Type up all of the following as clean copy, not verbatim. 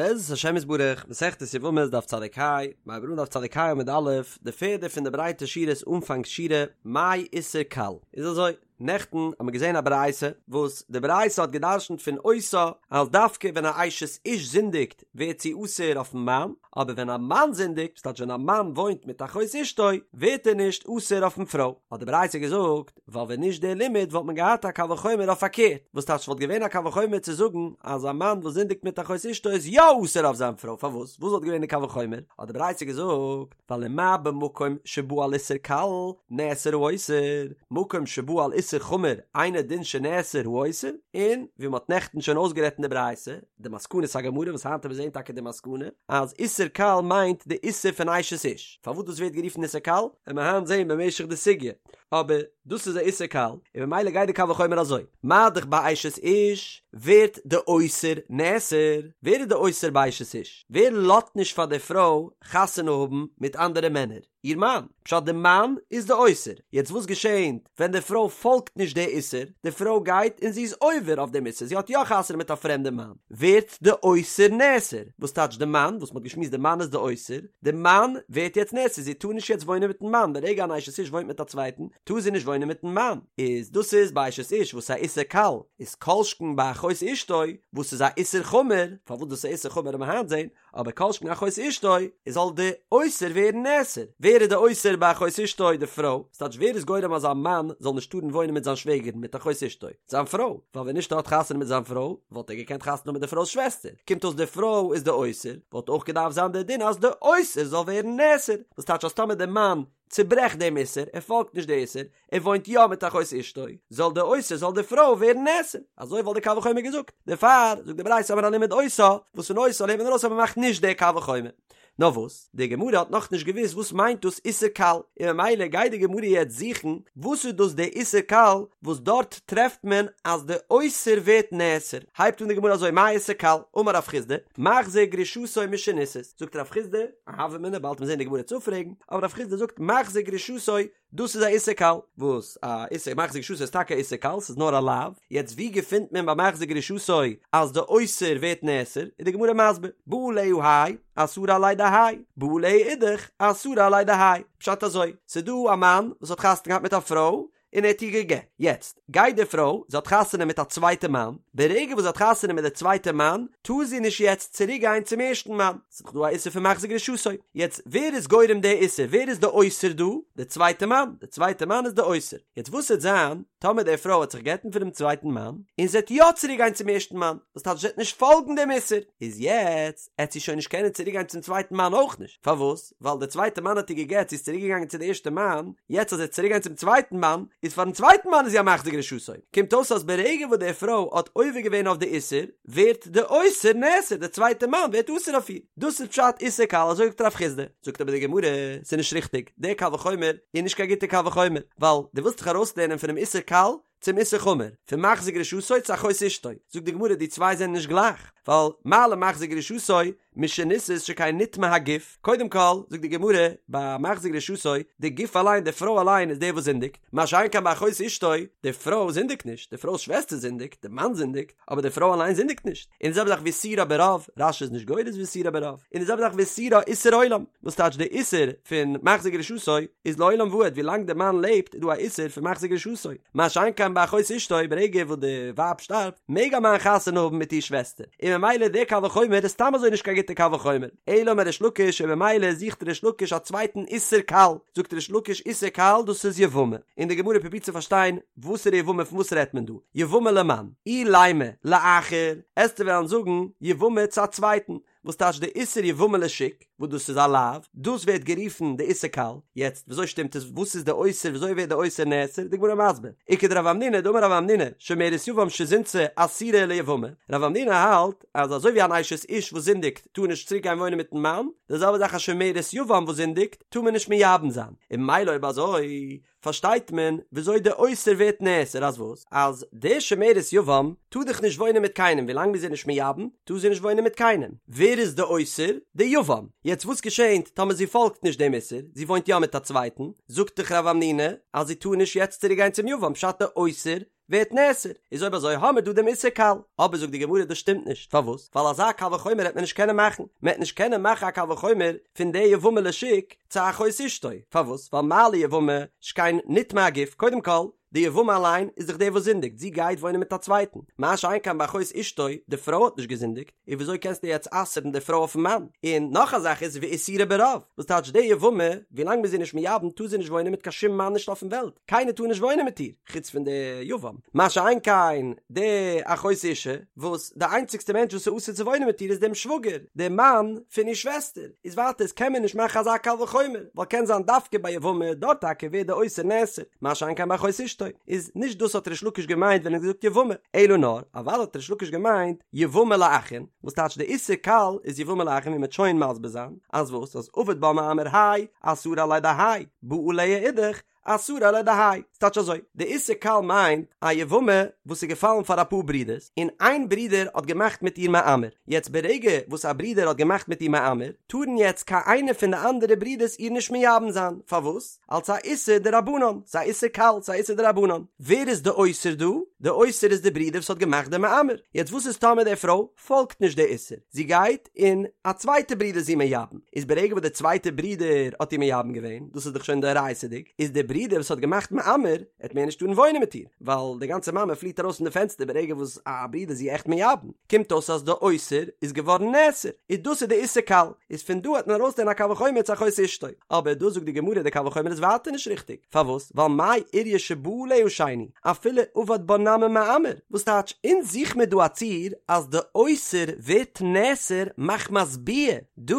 בעזרת השם יתברך, מסכת יבמות דף צדיק ה, מיר הייבן אן דף צדיק ה עמוד א', די פערדע פון די ברייטע שורות אנפאנג שורה, מאי איסור קל? איז אזוי, נעכטן האט מען געזען א ברייתא, וואס די ברייתא האט גע'דרש'נט פון אותה, אז דווקא ווען א אשת איש זינדיגט ווערט זי אסור אויפן מאן, אבער ווען א מאן זינדיגט, ס'טייטש ווען א מאן וואוינט מיט אחות אשתו, ווערט ער נישט אסור אויפן פרוי. האט די ברייתא געזאגט, ווייל ווען נישט דער לימוד וואלט מען געהאט א קל וחומר אויף פארקערט, וואס טייטש וואלט געווען א קל וחומר צו זאגן אז א מאן וואס זינדיגט מיט אחות אשתו איז יא אסור אויף זיין פרוי, פארוואס? וואס וואלט געווען די קל וחומר? האט די ברייתא געזאגט, ווייל ומה במקום שבא על איסור קל נאסר האוסר, מקום שבא על איסור חמור אינו דין שנאסר האוסר, און ווי מען האט נעכטן שוין אויסגערעדט אין די ברייתא, די מסקנת הגמרא וואס היינט וועט מען זעהן טאקע די מסקנא אז איסור קל מיינט די איסור פון אשת איש, פארוואס דאס ווערט גערופן איסור קל וועט מען היינט זעהן במשך די סוגיא, אבער דאס איז א איסור קל, און ממילא גייט די קל וחומר אזוי, מה דאך ביי אשת איש ווערט די אוסר נאסר, ווער איז די אוסר ביי אשת איש? ווער לאזט נישט פאר די פרוי חתונה האבן מיט אנדערע מענער? איר מאן, פשט די מאן איז די אוסר, יעצט וואס געשענט ווען די פרוי פאלגט נישט די איסור, די פרוי גייט און זי איז עובר אויף דעם איסור, זי האט יא חתונה מיט א פרעמדע מאן, ווערט די אוסר נאסר, וואס טייטש די מאן, וואס מ'האט געשמועסט די מאן איז די אוסר, די מאן ווערט יעצט נאסר, זי טאר נישט יעצט וואוינען מיטן מאן, ברגע אן אשת איש וואוינט מיט א צווייטן, טאר זי נישט וואוינען מיטן מאן, איז דאס איז ביי אשת איש וואס איז א איסור קל, איז כל שכן ביי אחות אשתו וואס איז א איסור חמור, פארוואס דאס איז א איסור חמור וועט מען היינט זען, אבער כל שכן אחות אשתו, איז זאל די אוסר ווערן נאסר. ווער איז די אוסר ביי אחות אשתו? די פרוי. ס'טייטש ווער איז גורם אז א מאן זאל נישט טארן וואוינען מיט זיין שוועגערין מיט אחות אשתו? זיין פרוי. ווייל ווען נישט ער האט חתונה מיט זיין פרוי, וואלט ער געקענט חתונה האבן מיט די פרוי'ס שוועסטער. קומט אויס די פרוי איז די אוסר, וואלט אויך געדארפט זיין די דין אז די אוסר זאל ווערן נאסר. וואס טייטש אז טאמער די מאן צוברעכט דעם איסור, ער פאלגט נישט די איסור, ער וואוינט יא מיט אחות אשתו, זאל די אוסר זאל די פרוי ווערן נאסר, אזוי וואלט די קל וחומר געזאגט, דערפאר זאגט די ברייתא האבן מיר א לימוד אותה, וואס פון אותה לערנט מען ארויס אז מען מאכט נישט די קל וחומר. נאר וואס, די גמרא האט נאכנישט געוואוסט וואס מיינט דאס איסור קל, און ממילא גייט די גמרא יעצט זוכן וואס איז דאס די איסור קל וואס דארט טרעפט מען אז די אוסר ווערט נאסר, הייבט אן די גמרא אזוי מאי איסור קל, אמר רב חסדא, מחזיר גרושתו משנישאת, זאגט רב חסדא, א הוה אמינא באלד וועט מען זען די גמרא צו פרעגן, אבער רב חסדא זאגט מחזיר גרושתו, דאס איז א איסור קל, וואס א איסור מחזיר גרושתו איז טאקע א איסור קל, ס'איז נאר א לאו, יעצט ווי געפינט מען ביי מחזיר גרושתו אז די אוסר ווערט נאסר, איז די גמרא מסביר, בא עליה האי, אסרה עליה דהאי, בא עליה אידך, אסרה עליה דהאי, פשט אזוי, ס'איז דא א מאן וואס האט חתונה געהאט מיט א פרוי, און ער האט איר גע'גט. יעצט, גייט די פרוי, זי האט חתונה מיט א צווייטע מאן, ברגע וואס זי האט חתונה מיט די צווייטע מאן, טאר זי נישט יעצט צוריק גיין צום ערשטן מאן, ס'איז דאך דא א איסור פון מחזיר גרושתו. יעצט, ווער איז גורם די איסור? ווער איז די אוסר דא? די צווייטע מאן. די צווייטע מאן איז די אוסר. יעצט וואס וועט זיין טאמער די פרוי וועט זיך גט'ן פונעם צווייטן מאן, און זי וועט יא צוריק גיין צום ערשטן מאן, וואס טייטש זי וועט נישט פאלגן דעם איסור? איז יעצט, עט זי שוין נישט קענען צוריק גיין צום צווייטן מאן אויך נישט. פארוואס? ווייל דער צווייטער מאן האט איר גע'גט, זי איז צוריק געגאנגען צו די ערשטע מאן, יעצט אז זי וועט צוריק גיין צום צווייטן מאן, איז פארן צווייטן מאן איז זי א מחזיר גרושתו, קומט אויס אז ברגע וואס די פרוי האט עובר געווען אויף די איסור, ווערט די אוסר נאסר, דער צווייטער מאן ווערט אסור אויף איר, דאס איז פשט איסור קל, אזוי זאגט רב חסדא, זאגט אבער די גמרא, ס'איז נישט ריכטיג, דער קל וחומר איז נישט קיין גוטער קל וחומר, ווייל דו ווילסט דיך ארויסלערנען פונעם איסור קל, צום איסור חמור, פון מחזיר גרושתו צו אחות אשתו, זאגט די גמרא די צוויי זענען נישט גלייך, ווייל מה למחזיר גרושתו משנישאת שכן נטמא הגוף, קודם כל זאגט די גמרא ביי מחזיר גרושתו די גוף אליין די פרוי אליין איז דער וואס זינדיגט, מה שאין כן ביי אחות אשתו, די פרוי זינדיגט נישט, די פרוי'ס שוועסטער זינדיגט, די מאן זינדיגט, אבער די פרוי אליין זינדיגט נישט, און די זעלבע זאך ואיסורה ברוב, רש"י איז נישט גורס ואיסורה ברוב, און די זעלבע זאך ואיסורה איסור עולם, וואס טייטש די איסור פון מחזיר גרושתו איז לעולם ועד, ווי לאנג די מאן לעבט איז דא א איסור פון מחזיר גרושתו, מה שאין כן ביי אחות אשתו ברגע וואס די ווייב שטארבט מעג א מאן חתונה האבן מיט איר שוועסטער, און ממילא די קל וחומר איז סתם אזוי נישט קיין גוטע קל וחומר, אלא אמר ריש לקיש און ממילא זוכט ריש לקיש א צווייטן איסור קל, זאגט ריש לקיש איסור קל דאס איז יבמה, און די גמרא פרובירט צו פארשטיין וואסערע יבמה פון וואס רעדט מען דא, יבמה למאן? אילימא לאחר, עסטו וועלן זאגן יבמה צו א צווייטן, וואס טייטש די איסור יבמה לשוק, וואס דאס איז א לאו, דאס ווערט גערופן די איסור קל, יעצט וויאזוי שטימט עס, וואס איז די אוסר, וויאזוי ווערט די אוסר נאסר, די גמרא מסביר, וכדרב המנונא דאמר רב המנונא, שומרת יבם שזינתה אסורה ליבמה, רב המנונא האלט אז אזוי ווי אן אשת איש וואס זינדיגט טאר נישט צוריק גיין וואוינען מיטן מאן, די זעלבע זאך א שומרת יבם וואס זינדיגט טאר מען נישט מייבם זיין, און ממילא אויב אזוי פארשטייט מען וויאזוי די אוסר ווערט נאסר אז וואס? אז די שומרת יבם טאר דאך נישט וואוינען מיט קיינעם ווילאנג מ'איז איר נישט מייבם טאר זי נישט וואוינען מיט קיינעם, ווער איז די אוסר? די יבם, יעצט וואס געשענט טאמער זי פאלגט נישט דעם איסור, זי וואוינט יא מיט א צווייטן, זאגט דאך רב המנונא אז זי טאר נישט יעצט צוריק גיין צום יבם פשט די אוסר? ווערט נאסר, איז אויב אזוי האמיר דא דעם איסור קל, אבער זאגט די גמרא דאס שטימט נישט, פארוואס? ווייל אזא קל וחומר העט מען נישט קענען מאכן, מען העט נישט קענען מאכן א קל וחומר פון די יבמה לשוק צו אחות אשתו, פארוואס? ווייל מה ליבמה שכן נטמא הגוף, קודם כל, די יבמה אליין איז דאך דער וואס זינדיגט, זי גייט וואוינען מיט א צווייטן, מה שאין כן ביי אחות אשתו, די פרוי האט נישט געזינדיגט, און וויאזוי קענסטו יעצט אסר'ן די פרוי אויפן מאן? און נאך א זאך איז ואיסורה ברוב, וואס טייטש די יבמה, ווילאנג מ'איז איר נישט מייבם טאר זי נישט וואוינען מיט קיין שום מאן נישט אויפן וועלט, קיינער טאר נישט וואוינען מיט איר, חוץ פון די יבם, מה שאין כן די אחות אשה, וואס די איינציגסטע מענטש וואס איז אסור צו וואוינען מיט איר איז דעם שוואגער, דער מאן פון איר שוועסטער, איז ווייטער איז קען מען נישט מאכן אזא קל וחומר, ווייל קען זיין דווקא ביי יבמה, דארט טאקע ווערט די אוסר נאסר, מה שאין כן ביי אחות אשתו, איז נישט דאס האט ריש לקיש געמיינט ווען ער האט געזאגט יבמה, אלא נאר, אוודאי האט ריש לקיש געמיינט יבמה לאחין, וואס טייטש די איסור קל איז יבמה לאחין ווי מ'וועט שוין מסביר זיין, אז וואס אז עבד בה מאמר האי, אסרה עליה דהאי, בא עליה אידך, אסרה עליה דהאי, ס'טייטש אזוי, די איסור קל מיינט א יבמה וואס איז געפאלן פאר אפאר ברידערס, און איין ברודער האט געמאכט מיט איר מאמר, יעצט ברגע וואס א ברודער האט געמאכט מיט איר מאמר, טארן יעצט קיין איינער פון די אנדערע ברידערס איר נישט מייבם זיין, פארוואס? אלס א איסור דרבנן, ס'איז א איסור קל, ס'איז א איסור דרבנן. ווער איז די אוסר דא? די אוסר איז די ברודער וואס האט געמאכט די מאמר, יעצט וואס איז טאמער די פרוי פאלגט נישט די איסור, זי גייט און א צווייטע ברודער איז איר מייבם, איז ברגע וואס די צווייטע ברודער האט איר מייבם געווען, דאס איז דאך שוין דאורייתא'דיג, איז די ברודער וואס האט געמאכט מאמר, עט מער נישט טארן וואוינען מיט איר, ווייל די גאנצע מאמר פליעט ארויס פון די פענסטער ברגע וואס א ברודער איז איר עכט מייבם, קומט אויס אז די אוסר איז געווארן נאסר, איז דאס איז די איסור קל, איז פון דא העט מען ארויסלערנען א קל וחומר צו אחות אשתו, אבער דא זאגט די גמרא די קל וחומר איז ווייטער נישט ריכטיג, פארוואס? ווייל מאי איריא שבא עליה שני, אפילו עבד בה נמי מאמר, וואס טייטש אונז זוך מיר דא א ציור אז די אוסר ווערט נאסר מחמת ביאה, דא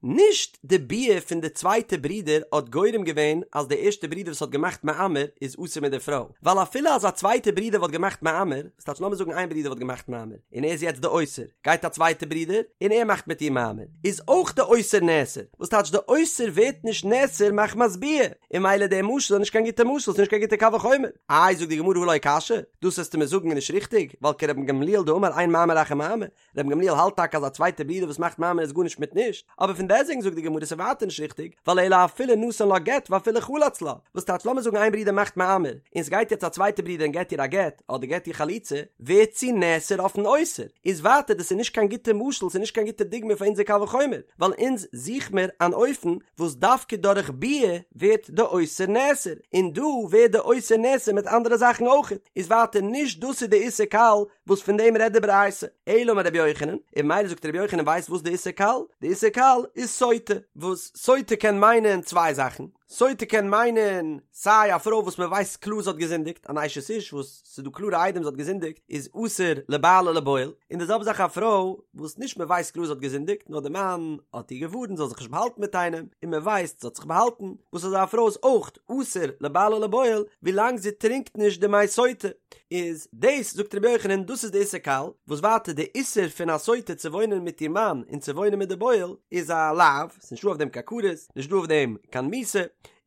נישט די ביאה פון די צווייטע ברודער האט גורם געווען אז די ערשטע ברודער וואס האט געמאכט מאמר איז אסור מיט די פרוי, ווייל אפילו אז א צווייטע ברודער וואלט געמאכט מאמר, וואס טייטש לאמיר זאגן איין ברודער וואלט געמאכט מאמר און ער איז יעצט די אוסר, גייט א צווייטע ברודער און ער מאכט מיט איר מאמר, איז אויך די אוסר נאסר, וואס טייטש די אוסר ווערט נישט נאסר מחמת ביאה, און ממילא די משל איז נישט קיין גוטע משל, ס'איז נישט קיין גוטע קל וחומר. איי זאגט די גמרא הא לא קשיא, דאס וועסטו מיר זאגן איז נישט ריכטיג, ווייל כרבן גמליאל דאמר אין מאמר אחר מאמר, רבן גמליאל האלט טאקע אז א צווייטע ברודער וואס מאכט מאמר איז גארנישט מיט נישט, אבער פון דעסטוועגן זאגט די גמרא ס'איז ווייטער נישט ריכטיג, ווייל אלא אפילו נתן לה גט ואפילו חלץ לה, וואס טייטש לאמיר זאגן איין ברודער מאכט מאמר, און ס'גייט יעצט א צווייטע ברודער און געט איר א גט, אדער געט איר חליצה, ווערט זי נאסר אויפן אוסר, איז ווייטער דאס איז נישט קיין גוטע משל ס'איז נישט קיין גוטע דוגמא פאר אונזער קל וחומר, ווייל אונז זוך מיר אן אופן וואס דווקא דורך ביאה ווערט די אוסר נאסר, און דא ווערט די אוסר נאסר מיט אנדערע זאכן אויכעט, איז ווייטער נישט דאס איז די איסור קל וואס פון דעם רעדט די ברייתא, אלא אמר רבי יוחנן, און ממילא זאגט רבי יוחנן ווייסט וואס די איסור קל? די איסור קל איז סוטה, וואס סוטה קען מיינען צוויי זאכן, סוטה קען מיינען סיי א פרוי וואס מען ווייסט קלאר זי האט געזינדיגט, אן אשת איש וואס ס'איז דא קלארע עדים זי האט געזינדיגט איז אסור לבעל ולבועל, און די זעלבע זאך א פרוי וואס נישט מען ווייסט קלאר זי האט געזינדיגט נאר די מאן האט איר געווארנט זי זאל זיך נישט באהאלטן מיט איינעם און מען ווייסט זי האט זיך באהאלטן, וואס אזא פרוי איז אויך אסור לבעל ולבועל ווילאנג זי טרינקט נישט די מי סוטה. איז דאס זאגט רבי יוחנן דאס איז די איסור קל, וואס ווייטער די איסור פון א סוטה צו וואוינען מיט איר מאן און צו וואוינען מיט די בועל איז א לאו, ס'איז נישטא אויף דעם קיין כרת, נישטא אויף דעם קיין מיתה,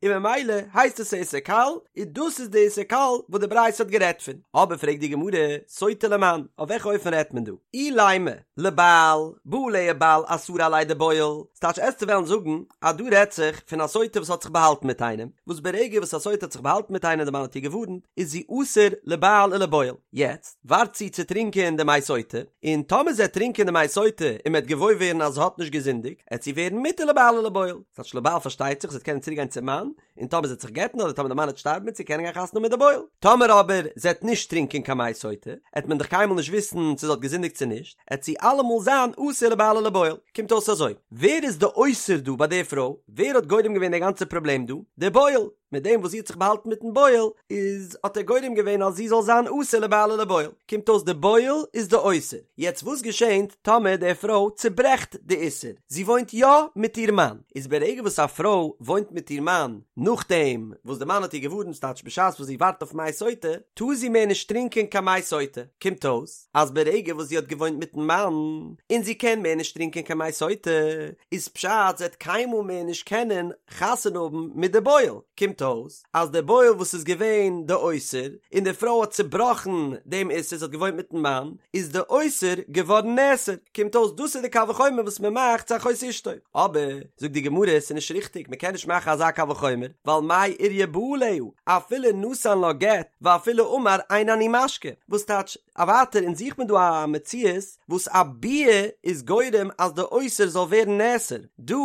און ממילא הייסט עס א איסור קל, און דאס איז די איסור קל וואס די ברייתא האט גערעדט פון. אבער פרעגט די גמרא, סוטה למאן, אויף וועלכע אופן רעדט מען דא? אילימא לבעל, בא עליה בעל אסרה עליה דבועל, ס'טייטש עסטו וועלן זאגן אז דא רעדט זיך פון א סוטה וואס האט זיך באהאלטן מיט איינעם, וואס ברגע וואס א סוטה האט זיך באהאלטן מיט איינעם די מאן האט איר געווארנט, איז זי אסור לבעל ולבועל. יעצט ווארט זי צו טרינקען די מי סוטה, און טאמער זי עט טרינקען די מי סוטה און מ'עט געוואויר ווערן אז זי האט נישט געזינדיגט, עט זי ווערן מותר לבעל ולבועל. ס'טייטש לבעל פארשטייט זיך זי עט קענען צוריק גיין צום מאן, און טאמער זי עט זיך גט'ן אדער טאמער די מאן עט שטארבן עט זי קענען גיין חתונה מיט די בועל. טאמער אבער זי עט נישט טרינקען קיין מי סוטה, עט מען דאך קיינמאל נישט וויסן צו זי האט געזינדיגט צו נישט, עט זי אלעמאל זיין אסור לבעל ולבועל. קומט אויס אזוי, ווער איז די אוסר דא ביי די פרוי? ווער האט גורם געווען די גאנצע פראבלעם דא? די בועל! מיט דעם וואס זי האט זיך באהאלטן מיטן בועל, איז האט ער גורם געווען אז זי זאל זיין אסור לבעל ולבועל. קומט אויס די בועל איז די אוסר. יעצט וואס געשענט טאמער די פרוי צוברעכט די איסור? זי וואוינט יא מיט איר מאן. איז ברגע וואס א פרוי וואוינט מיט איר מאן נאכדעם וואס די מאן האט איר געווארנט, ס'טייטש בשעת וואס זי ווארט אויף מי סוטה, טאר זי מער נישט טרינקען קיין מי סוטה. קומט אויס אז ברגע וואס זי האט געוואוינט מיטן מאן און זי קען מער נישט טרינקען קיין מי סוטה, איז פשט זי וועט קיינמאל מער נישט קענען חתונה האבן מיט די בועל, קומט. קומט אויס אז די בועל וואס איז געווען די אוסר, און די פרוי האט צובראכן דעם איסור, זי האט געוואוינט מיטן מאן, איז די אוסר געווארן נאסר, קומט אויס דאס איז די קל וחומר וואס מען מאכט צו אחות אשתו, אבער, זאגט די גמרא, עס איז נישט ריכטיג, מען קען נישט מאכן אזא קל וחומר, ווייל מאי איריא בא עליה, אפילו נתן לה גט, ואפילו אמר אין אני משקה, וואס טייטש, א ווייטער אונז זוכט מען דא א מציאות וואס א ביאה איז גורם אז די אוסר זאל ווערן נאסר, דא,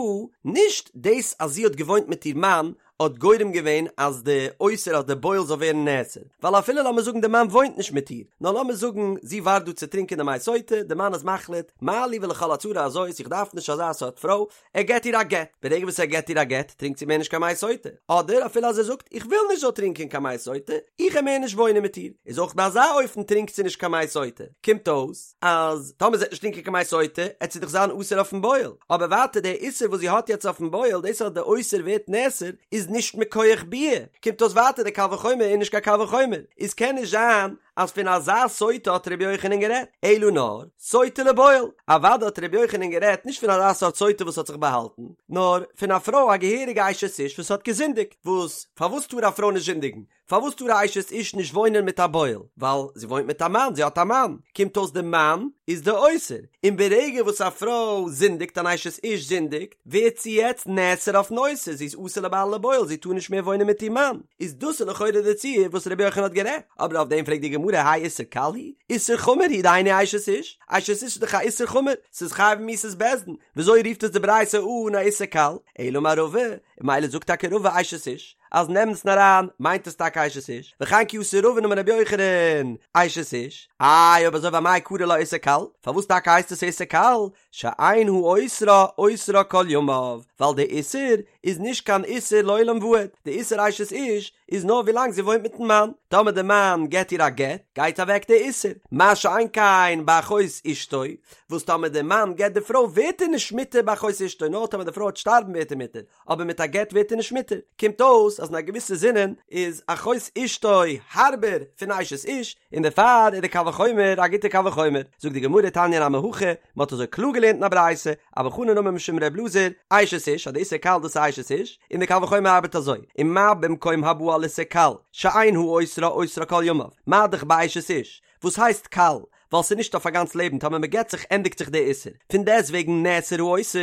נישט דאס אז זי האט געוואוינט מיט איר מאן האט גורם געווען אז די אוסר אז די בועל זאל ווערן נאסר, ווייל אפילו לאמיר זאגן די מאן וואוינט נישט מיט איר, נאר לאמיר זאגן זי ווארט דא צו טרינקען די מי סוטה, די מאן איז מחליט, מה לי ולכל הצרה הזאת, איך דארף נישט אזא סארט פרוי, ער געט איר א גט, ברגע וואס ער געט איר א גט טרינקט זי מער נישט קיין מי סוטה, אדער אפילו אז ער זאגט איך וויל נישט זאל טרינקען קיין מי סוטה, איך וועל מער נישט וואוינען מיט איר, איז אויך ביי אזא אופן טרינקט זי נישט קיין מי סוטה, קומט אויס אז טאמער זי וועט נישט טרינקען קיין מי סוטה עט זי דאך זיין אסור אויפן בועל, אבער ווייטער דער איסור וואס זי האט יעצט אויפן בועל דאס אז דער אוסר ווערט נאסר איז נישט מכח ביאה, קומט אויס ווייטער דער קל וחומר איז נישט קיין קל וחומר, איז קען נישט זיין אז פון אזא סוטה האט ר' יוחנן גערעדט, אלא נאר, סוטה לבועל, אוודאי האט ר' יוחנן גערעדט נישט פון אזא סארט סוטה וואס האט זיך באהאלטן, נאר פון א פרוי א געהעריגע אשת איש וואס האט געזינדיגט, וואס פארוואס טאר א פרוי נישט זינדיגן? פארוואס טאר א אשת איש נישט וואוינען מיט א בועל? ווייל זי וואוינט מיט א מאן, זי האט א מאן, קומט אויס די מאן איז די אוסר, און ברגע וואס א פרוי זינדיגט אן אשת איש זינדיגט, ווערט זי יעצט נאסר אויפן אוסר, זי איז אסור לבעל ולבועל, זי טאר נישט מער וואוינען מיט איר מאן, איז דאס איז לכאורה די ציור וואס רבי יוחנן האט גערעדט, אבער אויף דעם פרעגט די גמרא האי איסור קל הוא? איסור חמור הוא דהיינו אשת איש, אשת איש איז דאך א איסור חמור, ס'איז חייב מיתת בית דין, וויאזוי רופט עס די ברייתא אן א איסור קל? אלא אמר רבא, און ממילא זאגט טאקע רבא אשת איש, אז אין אמת'ן אריין מיינט עס טאקע אשת איש, וכן כי אתא רבין אמר רבי יוחנן אשת איש, איי אויב אזוי ואמאי קרי לה איסור קל, פארוואס טאקע הייסט עס איסור קל? שאין האוסרה אוסרה כל ימיו, ווייל די איסור איז נישט קיין איסור לעולם ועד, די איסור אשת איש איז נאר ווילאנג זי וואוינט מיטן מאן, טאמער די מאן געט איר א גט גייט אוועק די איסור, מה שאין כן באחות אשתו, וואס טאמער די מאן גט די פרוי ווערט ער נישט מותר באחות אשתו, נאר טאמער די פרוי וועט שטארבן ווערט ער מותר, אבער מיט א גט ווערט ער נישט מותר, קומט אויס אז אין א געוויסע זינען איז אחות אשתו הארבער פון אשת איש, און דערפאר איז די קל וחומר א גוטע קל וחומר, זאגט די גמרא תניא נמי הכי, מען האט אזוי קלאר געלערנט אין א ברייתא, אבא חנין אמר משום ר' אלעזר, אשת איש, אז די איסור קל דאס איז אשת איש, און די קל וחומר ארבעט אזוי, ומה במקום הבא על איסור קל, שאין האוסרה אוסרה כל ימיו, מה דאך באשת איש, וואס הייסט קל? ווייל ס'איז נישט אויף א גאנץ לעבן, טאמער מ'גט זיך ענדיגט זיך די איסור, פון דעסט וועגן נאסר האוסר,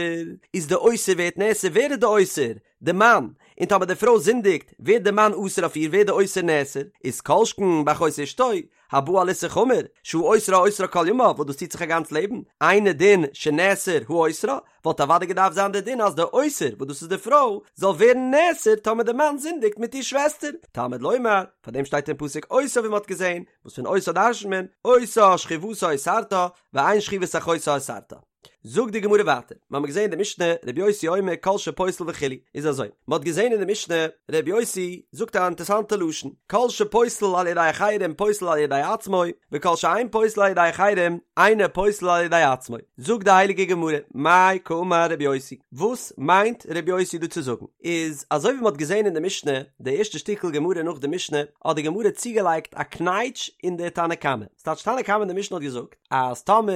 איז די אוסר ווערט נאסר, ווער איז די אוסר? די מאן, און טאמער די פרוי זינדיגט ווערט די מאן אסור אויף איר ווערט די אוסר נאסר, איז כל שכן באחות אשתו, הבא על איסור חמור, שהאוסרה אוסרה כל ימיו וואס דאס ציט זיך א גאנץ לעבן, אינו דין שנאסר האוסרה, וואלט אוודאי געדארפט זיין די דין אז די אוסר, וואס דאס איז די פרוי, זאל ווערן נאסר טאמער די מאן זינדיגט מיט איר שוועסטער, תלמוד לומר, פאר דעם שטייט אין פסוק אותה ווי מען האט געזען, וואס פון אותה דרש'נט מען, אותה שכיבתה אוסרתה, ואין שכיבת אחותה אוסרתה. זאגט די גמרא ווייטער, מיר האבן געזען אין די משנה, רבי יוסי אומר כל שפוסל וכו', איז אזוי, מען האט געזען אין די משנה, רבי יוסי זאגט א אינטערסאנטע לשון, כל שפוסל על ידי אחרים פוסל על ידי עצמו, וכל שאין פוסל על ידי אחרים אינו פוסל על ידי עצמו. זאגט די הייליגע גמרא, מאי קאמר רבי יוסי, וואס מיינט רבי יוסי דא צו זאגן? איז אזוי ווי מען האט געזען אין די משנה, די ערשטע שטיקל גמרא נאך די משנה, האט די גמרא צוגעלייגט א קנייטש אין די תנא קמא, ס'טייטש תנא קמא אין די משנה האט געזאגט אז טאמער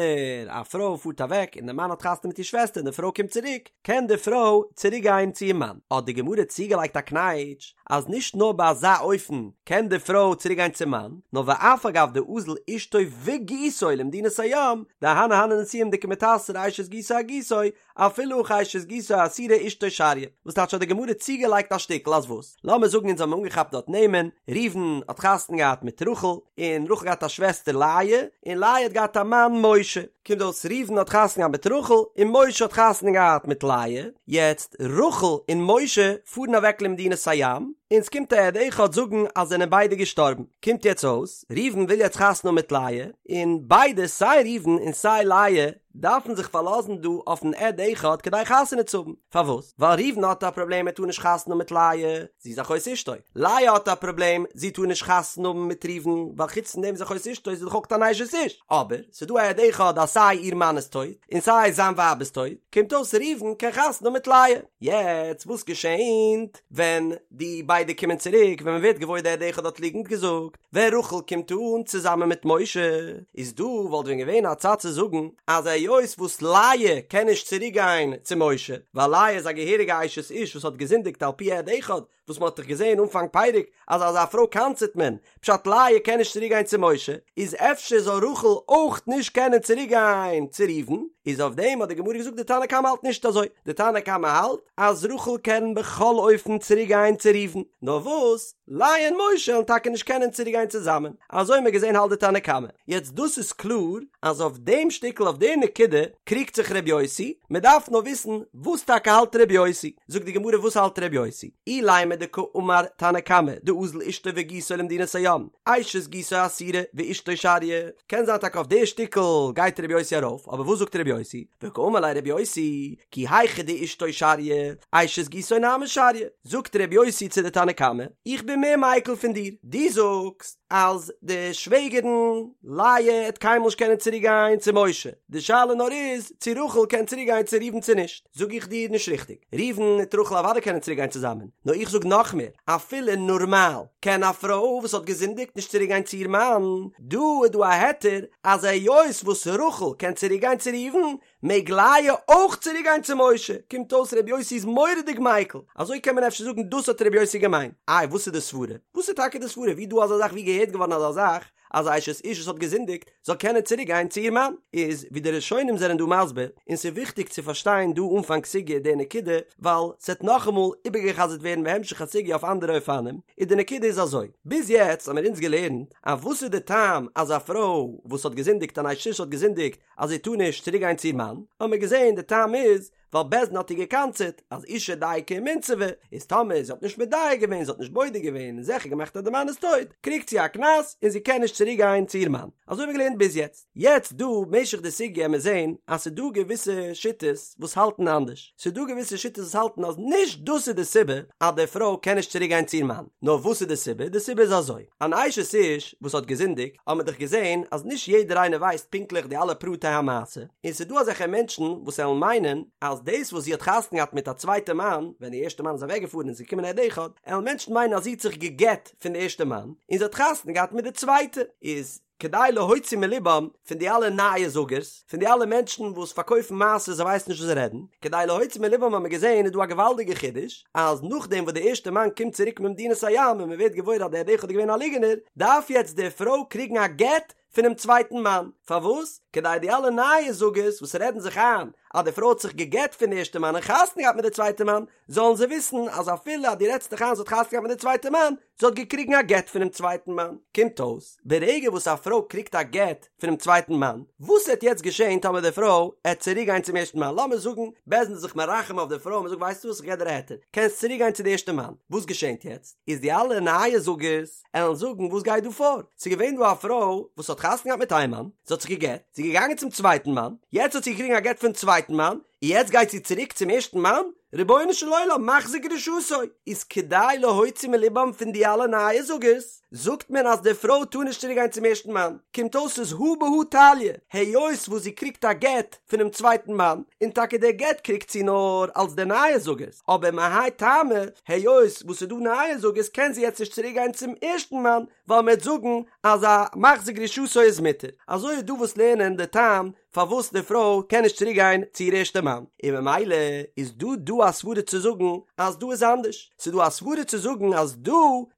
א פרוי פארט אוועק און די מאן האט חתונה מיט איר שוועסטער און די פרוי קומט צוריק, קען די פרוי צוריק גיין צו איר מאן, האט די גמרא צוגעלייגט א קנייטש אז נישט נאר ביי אזא אופן קען די פרוי צוריק גיין צום מאן, נאר ואף על גב דאזיל אשתו וגיסו למדינת הים, דאהני הני נישואין דקא מיתסרא אשת גיסו אגיסו, אפילו הכי אשת גיסו אסירא אשתו שריא, וואס טייטש האט די גמרא צוגעלייגט א שטיקל אז וואס? לאמיר זאגן אונז האבן אנגעכאפט דארט נעמען, ראובן האט חתונה געהאט מיט רחל, און רחל געהאט א שוועסטער לאה, און לאה האט געהאט א מאן משה, קומט אויס ראובן האט חתונה געהאט מיט רחל, און משה האט חתונה געהאט מיט לאה, יעצט רחל און משה פארן אוועק למדינת הים, און ס'קומט א עד אחד זאגן אז זענען ביידע געשטארבן, קומט יעצט אויס ראובן וויל יעצט חתונה האבן מיט לאה, און ביידע סיי ראובן און סיי לאה דארפן זיך פארלאזן דא אויפן עד אחד כדי חתונה צו האבן, פארוואס? ווייל ראובן האט א פראבלעם ער טאר נישט חתונה האבן מיט לאה, זי איז אחות אשתו, לאה האט א פראבלעם זי טאר נישט חתונה האבן מיט ראובן ווייל חוץ פון דעם איז אחות אשתו איז זי דאך אויך אן אשת איש, אבער ס'איז דא א עד אחד אז סיי איר מאן איז טויט און סיי זיין ווייב איז טויט, קומט אויס ראובן קען חתונה האבן מיט לאה. יעצט וואס געשענט ווען די ביידע קומען צוריק ווען מ'ווערט געוואויר די עד אחד האט ליגנט געזאגט? ווען רחל קומט אן צוזאמען מיט משה, איז דא וואלט ווען געווען א צד צו זאגן אז היות וואס לאה קען נישט צוריק גיין צו משה, ווייל לאה איז א געהעריגע אשת איש וואס האט געזינדיגט על פי עד אחד, וואס מען האט דאך געזען אנפאנג פרק אז אזא פרוי קנס'עט מען, פשט לאה קען נישט צוריק גיין צו משה, איז אפשר זאל רחל אויך נישט קענען צוריק גיין צו ראובן, איז אויף דעם האט די גמרא געזאגט די תנא קמא האלט נישט אזוי, די תנא קמא האלט אז רחל קען בכל אופן צוריק גיין צו ראובן, נאר וואס לאה און משה וועלן טאקע נישט קענען צוריק גיין צוזאמען, אזוי האט מען געזען האלט די תנא קמא, יעצט דאס איז קלאר אז אויף דעם שטיקל אויף די נקודה קריגט זיך ר' יוסי, מען דארף נאר וויסן וואס טאקע האלט ר' יוסי, זאגט די גמרא וואס האלט ר' יוסי, אילימא דקאמר תנא קמא דאזיל אשתו וגיסו למדינת הים, אשת גיסו אסירא ואשתו שריא, קען זיין טאקע אויף די שטיקל גייט ר' יוסי ארויף, אבער וואס זאגט ר' יוסי, וקאמר ליה ר' יוסי, כי היכי דאשתו שריא, אשת גיסו נמי שריא, זאגט ר' יוסי צו די תנא קמא, איך בין מער מיקל פון דיר, דו זאגסט אז די שוועגערן לאה עט קיינמאל נישט קענען צוריק גיין צו משה, די שאלה נאר איז צו רחל קען צוריק גיין צו ראובן צו נישט, זאג איך דיר נישט ריכטיג, ראובן מיט רחל אוודאי קענען צוריק גיין צוזאמען, נאר איך זאג נאך מער, אפילו נארמאל קען א פרוי וואס האט געזינדיגט נישט צוריק גיין צו איר מאן, דא איז דא א היתר אז היות וואס רחל קען צוריק גיין צו ראובן, מעג לאה אויך צוריק גיין צו משה, קומט אויס ר' יוסי איז מורא'דיג מיקל, אזוי קען מען אפשר זאגן דאס האט ר' יוסי געמיינט, איי וואס איז די סברה? וואס איז טאקע די סברה? ווי דא אזא זאך ווי געהערט געווארן אזא זאך אז א אשת איש וואס האט געזינדיגט זאל קענען צוריק גיין צו איר מאן? איז ווי די ראשונים זענען דא מסביר, און ס'איז וויכטיג צו פארשטיין דא אנפאנג סוגיא די נקודה, ווייל ס'עט נאכאמאל איבערגע'חזר'ט ווערן בהמשך הסוגיא אויף אנדערע אופנים, איז די נקודה איז אזוי, ביז יעצט האמיר אונז געלערנט אז וואס איז די טעם אז א פרוי וואס האט געזינדיגט אן אשת איש האט געזינדיגט אז זי טאר נישט צוריק גיין צו איר מאן, האבן מיר געזען די טעם איז ווייל בית דין האט איר געקנס'עט אז אשה דייקא ומינסבא, איז טאמער זי האט נישט מדייק געווען, זי האט נישט בודק געווען און זיכער געמאכט אז די מאן איז טויט, קריגט זי א קנס און זי קען נישט צוריק גיין צו איר מאן. אזוי האבן מיר געלערנט ביז יעצט. יעצט דא משך די סוגיא עמיר זען אז ס'איז דא געוויסע שיטות וואס האלטן אנדערש, ס'איז דא געוויסע שיטות וואס האלטן אז נישט דאס איז די סיבה אז די פרוי קען נישט צוריק גיין צו איר מאן, נאר וואס איז די סיבה? די סיבה איז אזוי, אן אשת איש וואס האט געזינדיגט, האט מען דאך געזען אז נישט יעדער איינער ווייסט פונקטליך די אלע פרטי המעשה, און ס'איז דא אזעלכע מענטשן וואס עלן מיינען אז דאס וואס זי האט חתונה געהאט מיט א צווייטע מאן, ווען די ערשטע מאן איז אוועקגעפארן און ס'איז געקומען עד אחד, עלן מענטשן מיינען אז זי האט זיך גע'גט פון די ערשטע מאן, און זי האט חתונה געהאט מיט די צווייטע, איז. כדי להוציא מלבם פון די אלע נייעס זאגערס, פון די אלע מענטשן וואס פארקויפן מעשות זיי ווייסן נישט וואס זיי רעדן, כדי להוציא מלבם האט מען געזען איז דא א געוואלדיגע חידוש, אז נאכדעם וואס די ערשטע מאן קומט צוריק ממדינת הים און מען ווערט געוואויר אז דער עד אחד איז געווען א ליגענער, דארף יעצט די פרוי קריגן א גט פונעם צווייטן מאן, פארוואס? כדי די אלע נייעס זאגערס וואס רעדן זיך איין אז די פרוי האט זיך גע'גט פון די ערשטע מאן און חתונה געהאט מיט די צווייטע מאן, זאלן זיי וויסן אז אפילו אז דו רעדסט דיך איין זי האט חתונה געהאט מיט די צווייטע מאן, זי האט געקריגן א גט פונעם צווייטן מאן. קומט אויס, ברגע וואס א פרוי קריגט א גט פונעם צווייטן מאן, וואס העט יעצט געשען טאמער די פרוי העט צוריק גיין צום ערשטן מאן? לאמיר זאגן, בית דין איז זיך מרחם אויף די פרוי און מ'זאגט ווייסטו וואס איך געב דיר א היתר, קענסט צוריק גיין צו די ערשטע מאן. וואס געשענט יעצט? איז די אלע נייעס זאגערס עלן זאגן וואס גייט דא פאר? ס'איז געווען דא א פרוי וואס האט חתונה געהאט מיט איין מאן, זי האט זיך געגט, זי איז געגאנגען צום צווייטן מאן, יעצט האט זי געקריגן א גט פון צווייטן מאן, און יעצט גייט זי צוריק צום ערשטן מאן? רבונו של עולם, מחזיר גרושתו! איז כדי להוציא מלבם פון די אלע נייעס זאגערס, זאגט מען אז די פרוי טאר נישט צוריק גיין צום ערשטן מאן, קומט אויס ס'איז הא בהא תליא, היות וואס זי קריגט א גט פונעם צווייטן מאן, און טאקע די גט קריגט זי נאר אלס די נייעס זאגערס, אבער מהאי טעמא, היות וואס ס'איז דא נייעס זאגערס קען זי יעצט נישט צוריק גיין צום ערשטן מאן, ווייל מ'וועט זאגן אז א מחזיר גרושתו איז מותר. אזוי איז דא וואס לערנען די טעם פארוואס די פרוי קען נישט צוריק גיין צו איר ערשטע מאן, און ממילא איז דא דא א סברה צו זאגן אז דא איז אנדערש, ס'איז דא א סברה צו זאגן אז דא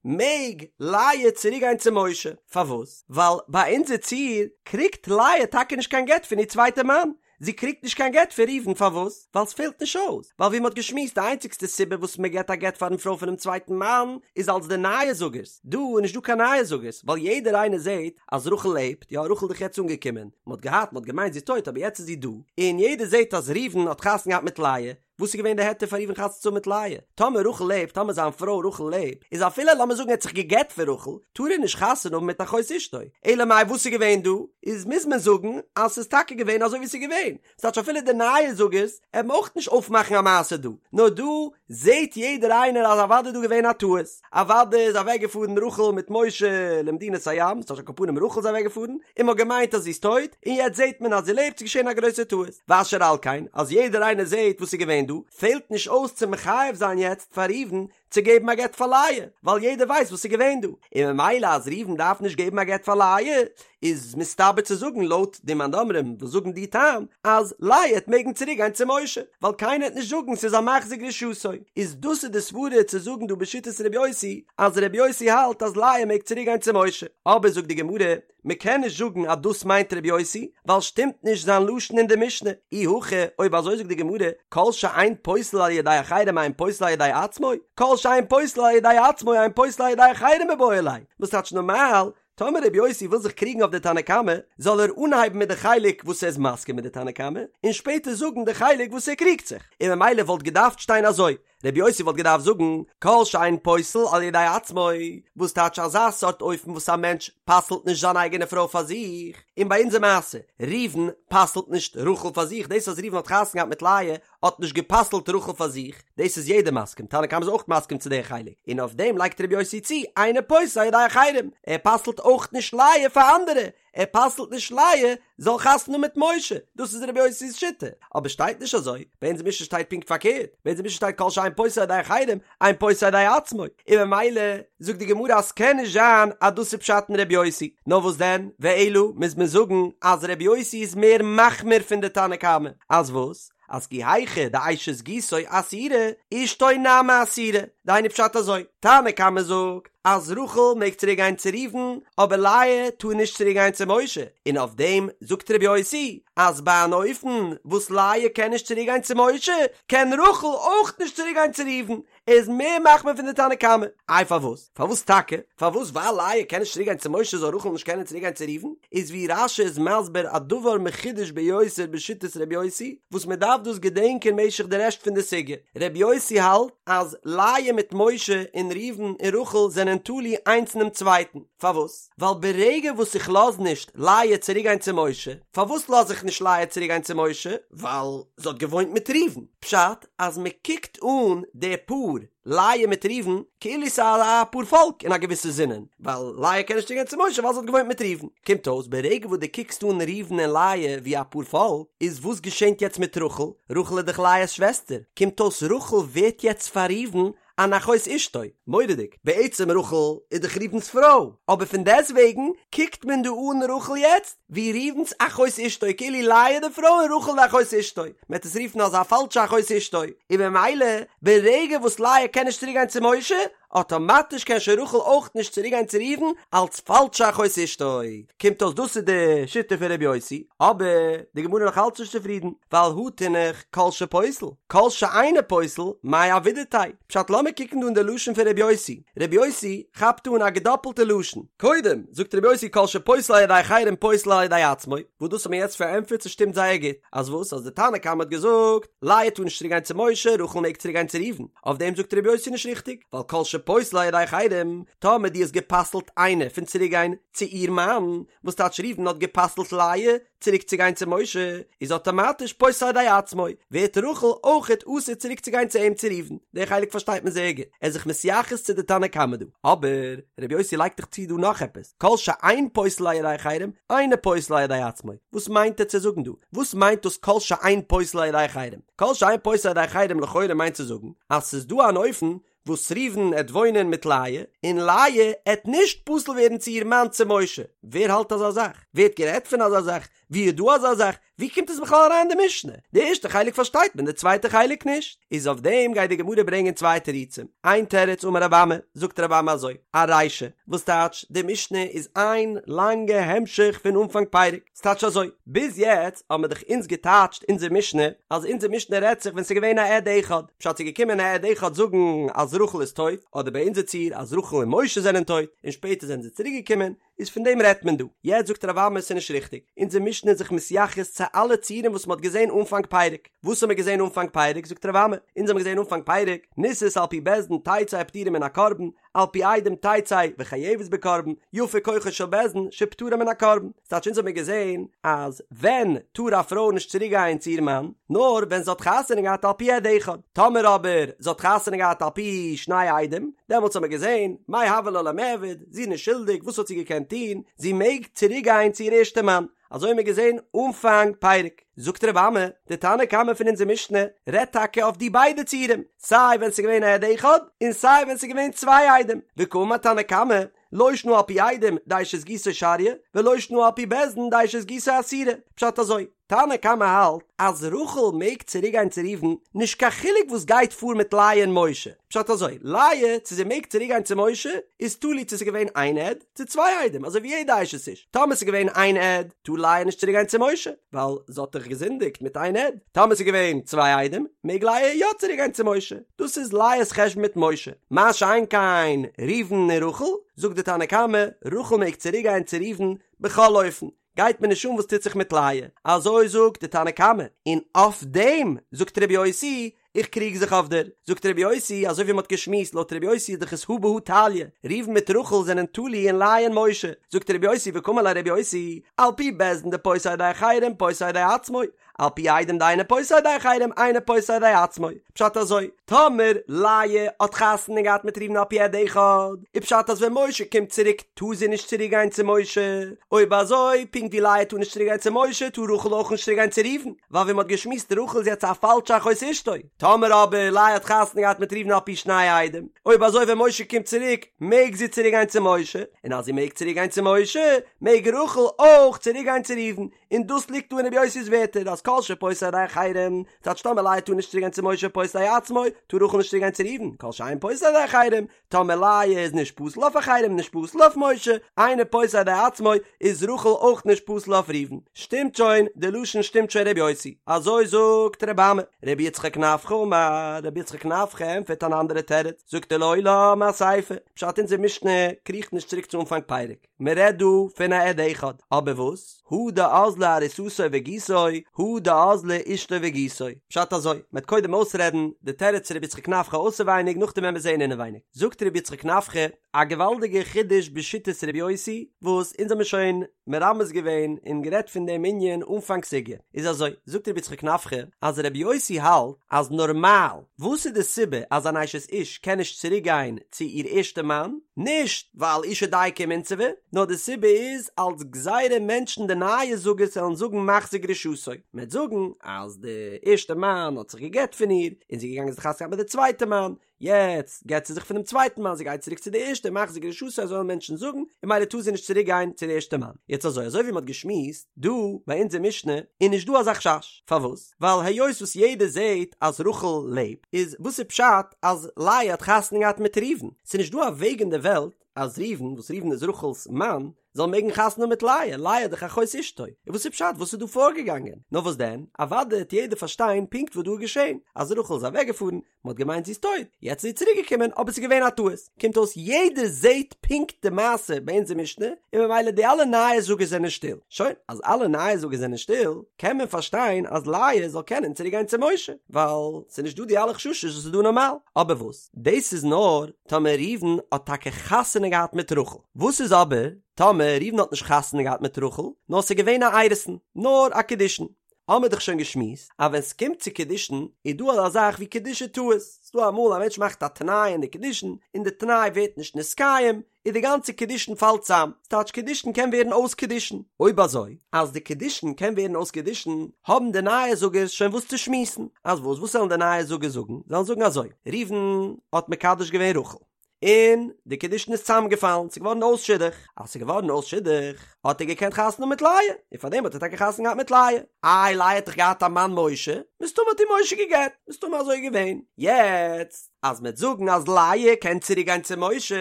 מעג לאה צוריק גיין צו משה, פארוואס? ווייל ביי אונזער ציור קריגט לאה טאקע נישט קיין גט פון איר צווייטע מאן, זי קריגט נישט קיין גט פון ראובן, פארוואס? ווייל ס'פעלט נישט אויס, ווייל ווי מ'האט געשמועסט די איינציגסטע סיבה וואס מ'געט א גט פארן פרוי פונעם צווייטן מאן איז אלס די נייעס זאגערס, דא איז נישט דא קיין נייעס זאגערס, ווייל יעדער איינער זעט אז רחל לעבט, יא רחל איז דאך יעצט אנגעקומען, מען האט געהאט, מען האט געמיינט זי איז טויט אבער יעצט איז זי דא, און יעדער זעט אז ראובן האט חתונה געהאט מיט לאה, וואס איז געווען די היתר פאר ראובן חתונה צו האבן מיט לאה? טאמער רחל לעבט, טאמער זיין פרוי רחל לעבט, איז אפילו לאמיר זאגן ער האט זיך גע'גט פון רחל, טאר ער נישט חתונה האבן מיט אחות אשתו, אלא מאי וואס איז געווען דא? איז מוז מען זאגן אז ס'איז טאקע געווען אזוי ווי ס'איז געווען, ס'טייטש אפילו די נייעס זאגערס עלן אויך נישט אויפמאכן א מעשה דא, נאר דא זעהט יעדער איינער אז אוודאי איז דא געווען א טעות, אוודאי איז אוועק געפארן רחל מיט משה למדינת הים, ס'טייטש על כל פנים רחל איז אוועק געפארן, און מ'האט געמיינט אז זי איז טויט, און יעצט זעהט מען אז זי לעבט, ס'איז געשעהן א גרויסע טעות, ואשר על כן, אז יעדער איינער זעהט וואס איז געווען דא, פעלט נישט אויס צו מחייב זיין יעצט פאר ראובן צו געבן א גט פאר לאה, ווייל יעדער ווייסט וואס איז געווען דא, און ממילא אז ראובן דארף נישט געבן א גט פאר לאה, איז מסתבר צו זאגן לויט די מאן דאמרים וואס זאגן די טעם אז לאה עט מעגן צוריק גיין צו משה, ווייל קיינער עט נישט זאגן ס'איז א מחזיר גרושתו, איז דאס איז די סברה צו זאגן דא בשיטת ר' יוסי אז ר' יוסי האלט אז לאה מעג צוריק גיין צו משה, אבער זאגט די גמרא מ'קען נישט זאגן אז דאס מיינט ר' יוסי, ווייל שטימט נישט זיין לשון אין די משנה, אי הכי אויב אזוי זאגט די גמרא כל שאין פוסל על ידי אחרים אין פוסל על ידי עצמו, כל שאין פוסל על ידי עצמו אין פוסל על ידי אחרים מיבעי ליה, וואס טייטש נארמאל טאמער רבי יוסי וויל זיך קריגן אויף די תנא קמא, זאל ער אנהייבן מיט די חלק וואס ער איז מסכים מיט די תנא קמא, און שפעטער זאגן די חלק וואס ער קריגט זיך, און ממילא וואלט געדארפט שטיין אזוי, רבי יוסי וואלט געדארפט זאגן, כל שאין פוסל על ידי עצמו, וואס טייטש אזא סארט אופן וואס א מענטש פסל'ט נישט זיין אייגענע פרוי פאר זיך, און ביי אונזער מעשה, ראובן פסל'ט נישט רחל פאר זיך, דאס אז ראובן האט חתונה געהאט מיט לאה האט נישט גע'פסל'ט רחל פאר זיך, דאס איז יעדער מסכים, תנא קמא איז אויך מסכים צו די חלק, און אויף דעם לייגט רבי יוסי צו, אינו פוסל על ידי אחרים, ער פסל'ט אויך נישט לאה פאר אנדערע, ער פסל'ט נישט לאה זאל חתונה האבן מיט משה, דאס איז רבי יוסי'ס שיטה, אבער שטייט נישט אזוי, ביי אונזער משנה שטייט פונקט פארקערט, ביי אונזער משנה שטייט כל שאין פוסל על ידי אחרים, אין פוסל על ידי עצמו, און ממילא זאגט די גמרא אז ס'קען נישט זיין אז דאס איז פשט אין רבי יוסי, נאר וואס דען, ואלא מוז מען זאגן אז רבי יוסי איז מער מחמיר פון די תנא קמא, אז וואס? אז כי היכי דאשת גיסו אסירא, אשתו נמי אסירא, דהיינו פשט אזוי, תנא קמא זאגט אז רחל מעג צוריק גיין צו ראובן, אבער לאה טאר נישט צוריק גיין צו משה, און אויף דעם זאגט רבי יוסי אז ביי אן אופן וואס לאה קען נישט צוריק גיין צו משה, קען רחל אויך נישט צוריק גיין צו ראובן, ער איז מער מחמיר פון די תנא קמא. איי פארוואס? פארוואס טאקע? פארוואס ווייל לאה קען נישט צוריק גיין צו משה זאל רחל נישט קענען צוריק גיין צו ראובן? איז ווי רש"י איז מסביר א דבר מחודש ביותר בשיטת ר' יוסי, וואס מען דארף דאס געדענקען משך די רעשט פון די סוגיא. ר' יוסי האלט אז לאה מיט משה און ראובן און רחל זענען תלוי איינס אינעם צווייטן. פארוואס? ווייל ברגע וואס איך לאז נישט לאה צוריק גיין צו משה, פארוואס לאז איך נישט לאה צוריק גיין צו משה? ווייל זי האט געוואוינט מיט ראובן. פשט, אז מען קוקט אן די פאר, לאה מיט ראובן, כאילו ס'איז א פאר פאלק אין א געוויסע זינען, ווייל לאה קען נישט צוריק גיין צו משה ווייל זי האט געוואוינט מיט ראובן. קומט אויס ברגע וואס דו קוקסט אן ראובן און לאה ווי א פאר פאלק, איז וואס געשענט יעצט מיט רחל? רחל איז דאך לאה'ס שוועסטער, קומט אויס רחל ווערט יעצט פאר ראובן אן אחות אשתו, מורא'דיג, בעצם רחל איז דאך ראובן'ס פרוי, אבער פון דעסטוועגן קוקט מען דא אן רחל יעצט ווי ראובן'ס אחות אשתו, כאילו לאה איז די פרוי און רחל די אחות אשתו, מען וועט עס רופן אזא פאלשע אחות אשתו, און במילא ברגע וואס לאה קען נישט צוריק גיין צו משה, אטאמאטיש קען שוין רחל אויך נישט צוריק גיין צו ראובן אלץ פאלשע אחות אשתו, קומט אויס דאס איז די שיטה פון ר' יוסי, אבער די גמרא איז נאך אלץ נישט צופרידן, ווייל הא תינח כל שפוסל, כל שאינו פוסל, מאי עבידתיה? פשט לאמיר קוקן דא אין די לשון פון ר' יוסי, ר' יוסי כאפט אן א געדאפלטע לשון, קודם זאגט ר' יוסי כל שפוסל על ידי אחרים פוסל על ידי עצמו, וואס דאס האט מען יעצט פארענטפערט ס'שטימט זייער גוט, אז וואס אז די תנא קמא האט געזאגט לאה טאר נישט צוריק גיין צו משה, רחל מעג צוריק גיין צו ראובן, אויף דעם זאגט ר' יוסי נישט ריכטיג, ווייל כל שפוסל על ידי אחרים, טאמער דו האסט גע'פסל'ט איינע פון צוריק גיין צו איר מאן, וואס טייטש ראובן האט גע'פסל'ט לאה צוריק צו גיין צו משה, איז אטאמאטיש פוסל על ידי עצמו, ווערט רחל אויכעט אסור צוריק צו גיין צו אים צו ראובן, די חלק פארשטייט מען זייער גוט, ער איז זיך מתייחס צו די תנא קמא דא, אבער ר' יוסי לייגט דאך צו דא נאך עפעס, כל שאין פוסל על ידי אחרים, אינו פוסל על ידי עצמו, וואס מיינט ער צו זאגן דא? וואס מיינט דאס כל שאין פוסל על ידי אחרים? כל שאין פוסל על ידי אחרים לכאורה מיינט צו זאגן אז ס'איז דא אן אופן וואס ראובן עט וואוינען מיט לאה, און לאה עט נישט פסול ווערן צו איר מאן צו משה, ווער האלט אזא זאך? ווער האט גערעדט פון אזא זאך? ווי איז דא אזא זאך? ווי קומט עס בכלל אריין אין די משנה? די ערשטע חלק פארשטייט מען, די צווייטע חלק נישט. איז אויף דעם גייט די גמרא ברענגען צוויי תירוצים. איין תירוץ אמר רב אמי, זאגט רב אמי אזוי, ארישא, וואס טייטש, די משנה איז איין לאנגע המשך פון אנפאנג פרק. ס'טייטש אזוי, ביז יעצט האבן מיר דאך אונז געטייטשט אונזער משנה, אז אונזער משנה רעדט זיך ווען ס'איז געווען א עד אחד, פשט ס'איז געקומען א עד אחד זאגן אז רחל איז טויט, אדער ביי אונזער ציור אז רחל און משה זענען טויט, און שפעטער זענען זיי צוריק געקומען, איז פון דעם רעדט מען דא. יעצט זאגט רב אמי ס'איז נישט ריכטיג, אונזער משנה איז זיך מתייחס צו אלע ציורים וואס מ'האט געזען אנפאנג פרק. וואס האבן מיר געזען אנפאנג פרק? זאגט רב אמי, אונז האבן געזען אנפאנג פרק, נישאת על פי בית דין תצא ופטורה מן הקרבן, על פי עדים תצא וחייבת בקרבן, יפה כוחו של בית דין שפטרה מן הקרבן. ס'טייטש אונז האבן מיר געזען אז ווען טאר א פרוי נישט צוריק גיין צו איר מאן? נאר ווען זי האט חתונה געהאט על פי עד אחד. טאמער אבער זי האט חתונה געהאט על פי שני עדים, דעמאלטס האבן מיר געזען, מאי הוה לה למיעבד, זי איז נישט שולדיג, וואס האט זי געקענט טון? זי מעג צוריק גיין צו איר ערשטע מאן. אזוי האבן מיר געזען אנפאנג פרק. זאגט רב אמי, די תנא קמא פון אונזער משנה רעדט טאקע אויף די ביידע ציורים, סיי ווען ס'איז געווען א עד אחד, און סיי ווען ס'איז געווען צוויי עדים. וקאמר תנא קמא, לא שנא על פי עדים דאשת גיסו שריא, ולא שנא על פי בית דין דאשת גיסו אסירא. פשט אזוי, תנא קמא האלט אז רחל מעג צוריק גיין צו ראובן נישט קיין חילוק וואס גייט פאר מיט לאה און משה, פשט אזוי, לאה צו זי מעג צוריק גיין צו משה איז תלוי צו ס'איז געווען איין עד צו צוויי עדים אזוי ווי יעדע אשת איש, טאמער ס'איז געווען איין עד טאר לאה נישט צוריק גיין צו משה ווייל זי האט דאך געזינדיגט מיט איין עד, טאמער ס'איז געווען צוויי עדים מעג לאה יא צוריק גיין צו משה, דאס איז לאה'ס חשבון מיט משה, מה שאין כן ראובן און רחל, זאגט די תנא קמא, רחל מעג צוריק גיין צו ראובן בכל אופן, גייט מיר נישט אן וואס טוט זיך מיט לאה, אזוי זאגט די תנא קמא, און אויף דעם זאגט רבי יוסי, איך קריג זיך אויף דיר, זאגט רבי יוסי, אזוי ווי מען האט געשמועסט, לויט רבי יוסי איז דאך עס הא בהא תליא, ראובן מיט רחל זענען תלוי אין לאה און משה, זאגט רבי יוסי וקאמר ליה רבי יוסי, על פי בית דין דפוסל על ידי אחרים פוסל על ידי עצמו, על פי עדים דאינו פוסל על ידי אחרים אינו פוסל על ידי עצמו, פשט אזוי, טאמער לאה האט חתונה געהאט מיט ראובן על פי עד אחד, איז פשט אז ווען משה קומט צוריק טאר זי נישט צוריק גיין צו משה, אויב אזוי פונקט ווי לאה טאר נישט צוריק גיין צו משה טאר רחל אויך נישט צוריק גיין צו ראובן, ווייל ווי מען האט געשמועסט רחל איז יעצט א פאלשע אחות אשתו, טאמער אבער לאה האט חתונה געהאט מיט ראובן על פי שני עדים, אויב אזוי ווען משה קומט צוריק מעג זי צוריק גיין צו משה, און אז זי מעג צוריק גיין צו משה מעג רחל אויך צוריק גיין צו ראובן, און דאס ליגט דא אין רבי יוסי'ס ווערטער אז כל שפוסל על ידי אחרים, טייטש טאמער לאה טאר נישט צוריק גיין צו משה פוסל על ידי עצמו, טאר רחל נישט צוריק גיין צו ראובן, כל שאין פוסל על ידי אחרים, טאמער לאה איז נישט פסול אויף אחרים נישט פסול אויף משה, אינו פוסל על ידי עצמו, איז רחל אויך נישט פסול אויף ראובן. שטימט שוין, די לשון שטימט שוין רבי יוסי. אזוי זאגט רבי אמי. רבי יצחק נפחא אמר, רבי יצחק נפחא ענטפערט אן אנדערע תירוץ, זאגט ער לעולם אסיפא, פשט אונזער משנה קריכט נישט צוריק צו אנפאנג פרק. מען רעדט דא פון א עד אחד, אבער וואס? הא דאזלה ארוסתו וגיסו, הא דאזלה אשתו וגיסו. פשט אזוי, מען וועט קודם אויסרעדן די תירוץ פון רבי יצחק נפחא אויסערווייניג נאכדעם וועלן מיר זעהן אינעווייניג. זאגט רבי יצחק נפחא א געוואלדיגע חידוש בשיטת רבי יוסי, וואס אונז האמיר שוין מרמז געווען און גערעדט פון דעם ענין אנפאנג סוגיא. איז אזוי, זאגט רבי יצחק נפחא אז רבי יוסי האלט אז נארמאל, וואס איז די סיבה אז אן אשת איש קען נישט צוריק גיין צו איר ערשטע מאן? נישט ווייל אשה דייקא ומינסבא, נאר די סיבה איז אלס גזירה מענטשן די נייע זאגערס וועלן זאגן מחזיר גרושתו, מען וועט זאגן אז די ערשטע מאן האט זיך גע'גט פון איר און זי איז געגאנגען זיך חתונה געהאט מיט די צווייטע מאן, יעצט גט זי זיך פונעם צווייטן מאן, זי גייט צוריק צו די ערשטע, מחזיר גרושתו אזוי וועלן מענטשן זאגן, און ממילא טאר זי נישט צוריק גיין צו די ערשטע מאן. יעצט אזוי, אזוי ווי מען האט געשמועסט דא ביי אונזער משנה, איז נישט דא אזא חשש, פארוואס? ווייל היות וואס יעדער זעט אז רחל לעבט, איז וואס איז פשט אז לאה האט חתונה געהאט מיט ראובן? ס'איז נישט דא א וועג אין די וועלט אז ראובן, וואס ראובן איז רחל'ס מאן, זאל מעגן חתונה האבן מיט לאה, לאה איז דאך אחות אשתו, און וואס איז פשט וואס איז דא פארגעגאנגען? נאר וואס דען, אוודאי העט יעדער פארשטיין פונקט וואס דא איז געשען, אז רחל איז אוועקגעפארן, מען האט געמיינט זי איז טויט, יעצט איז זי צוריק געקומען, אבער ס'איז געווען א טעות, קומט אויס יעדער זעט פונקט די מעשה ביי אונזער משנה, און ממילא די אלע נייעס זאגערס זענען שטיל, שוין, אז אלע נייעס זאגערס זענען שטיל, קען מען פארשטיין אז לאה זאל קענען צוריק גיין צו משה, ווייל ס'איז נישט דא די אלע חששות וואס איז דא נארמאל, אבער וואס? דאס איז נאר טאמער ראובן האט טאקע חתונה געהאט מיט רחל, וואס איז אבער טאמער ראובן האט נישט חתונה געהאט מיט רחל, נאר ס'איז געווען א אירוסין, נאר א קידושין, האמער דאך שוין געשמועסט אז ווען ס'קומט צו קידושין איז דא אזא זאך ווי קידושי טעות, ס'דא אמאל א מענטש מאכט א תנאי אין די קידושין און די תנאי ווערט נישט נתקיים, איז די גאנצע קידושין פאלט צאם, ס'טייטש קידושין קען ווערן אויס קידושין, אויב אזוי אז די קידושין קען ווערן אויס קידושין האבן די נייע זאגערס שוין וואס צו שמועסן, אז וואס וואס וועלן די נייע זאגערס זאגן, זיי וועלן זאגן אזוי, ראובן האט מקדש געווען רחל, און די קידושין איז צאמגעפאלן, ס'איז געווארן אויס שידוך, אז ס'איז געווארן אויס שידוך האט ער געקענט חתונה האבן מיט לאה, און פארדעם האט ער טאקע חתונה געהאט מיט לאה, איי לאה האט דאך געהאט א מאן משה, מסתמא האט איר משה גע'גט, מסתמא אזוי געווען, יעצט אז מ'עט זאגן אז לאה קען צוריק גיין צו משה,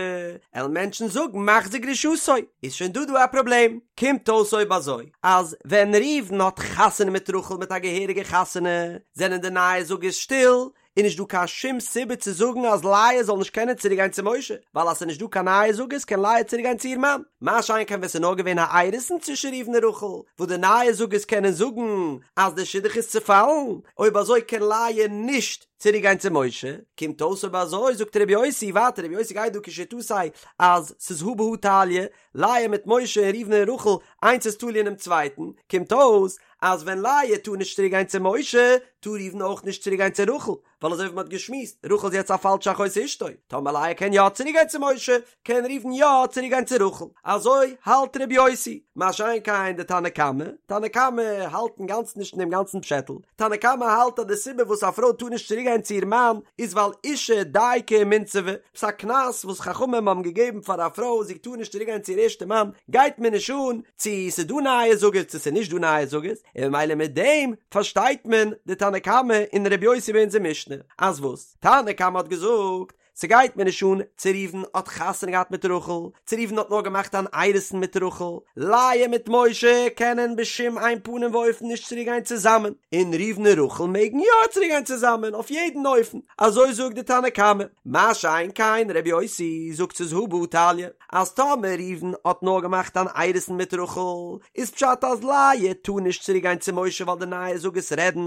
עלן מענטשן זאגן מחזיר גרושתו, איז שוין דא דא א פראבלעם, קומט אויס אויב אזוי אז ווען ראובן האט חתונה מיט רחל מיט א געהעריגע חתונה, זענען די נייע זאגערס שטיל, איז נישט דא קיין שום סיבה צו זאגן אז לאה זאל נישט קענען צוריק גיין צו משה, ווייל אז ס'איז נישט דא קיין נייע זאגערס קען לאה צוריק גיין צו איר מאן, מה שאין כן ווען ס'איז נאר געווען א אירוסין צווישן ראובן און רחל, וואס די נייע זאגערס קענען זאגן אז די שידוך איז צופאלן, אויב אזוי קען לאה נישט צוריק גיין צו משה, קומט אויס אויב אזוי זאגט ר' יוסי ווייטער ר' יוסי גייט דא כשיטתו אז ס'איז הא בהא תליא, לאה מיט משה און ראובן און רחל איינס איז תלוי אינעם צווייטן, קומט אויס. אז ווען לאה טאר נישט צוריק גיין צו משה, טאר ראובן אויך נישט צוריק גיין צו רחל, ווייל אזוי ווי מ'האט געשמועסט, רחל איז יעצט א פאלשע אחות אשתו, טאמער לאה קען יא צוריק גיין צו משה, קען ראובן יא צוריק גיין צו רחל. אזוי האלט ר' יוסי. מה שאין כן די תנא קמא, תנא קמא האלט אינגאנצן נישט אין דעם גאנצן פשעטל, תנא קמא האלט אז די סיבה וואס א פרוי טאר נישט צוריק גיין צו איר מאן איז ווייל אשה דייקא ומינסבא, ס'איז א קנס וואס חכמים האבן געגעבן פאר א פרוי זי טאר נישט צוריק גיין צו איר ערשטע מאן, גייט מיר נישט אן צו ס'איז דא נייע זוגות צו ס'איז נישט דא נייע זוגות, און ממילא מיט דעם פארשטייט מען די תנא קמא און ר' יוסי ביי אונזער משנה, אז וואס? תנא קמא האט געזאגט, ס'גייט מיר נישט אן צו ראובן האט חתונה געהאט מיט רחל, צו ראובן האט נאר געמאכט אן אירוסין מיט רחל, לאה מיט משה קענען בשום אין פנים ואופן נישט צוריק גיין צוזאמען, און ראובן און רחל מעגן יא צוריק גיין צוזאמען אויף יעדן אופן, אזוי זאגט די תנא קמא, מה שאין כן ר' יוסי זאגט ס'איז הא בהא תליא, אז טאמער ראובן האט נאר געמאכט אן אירוסין מיט רחל, איז פשט אז לאה טאר נישט צוריק גיין צו משה ווייל די נייע זוגות רעדן,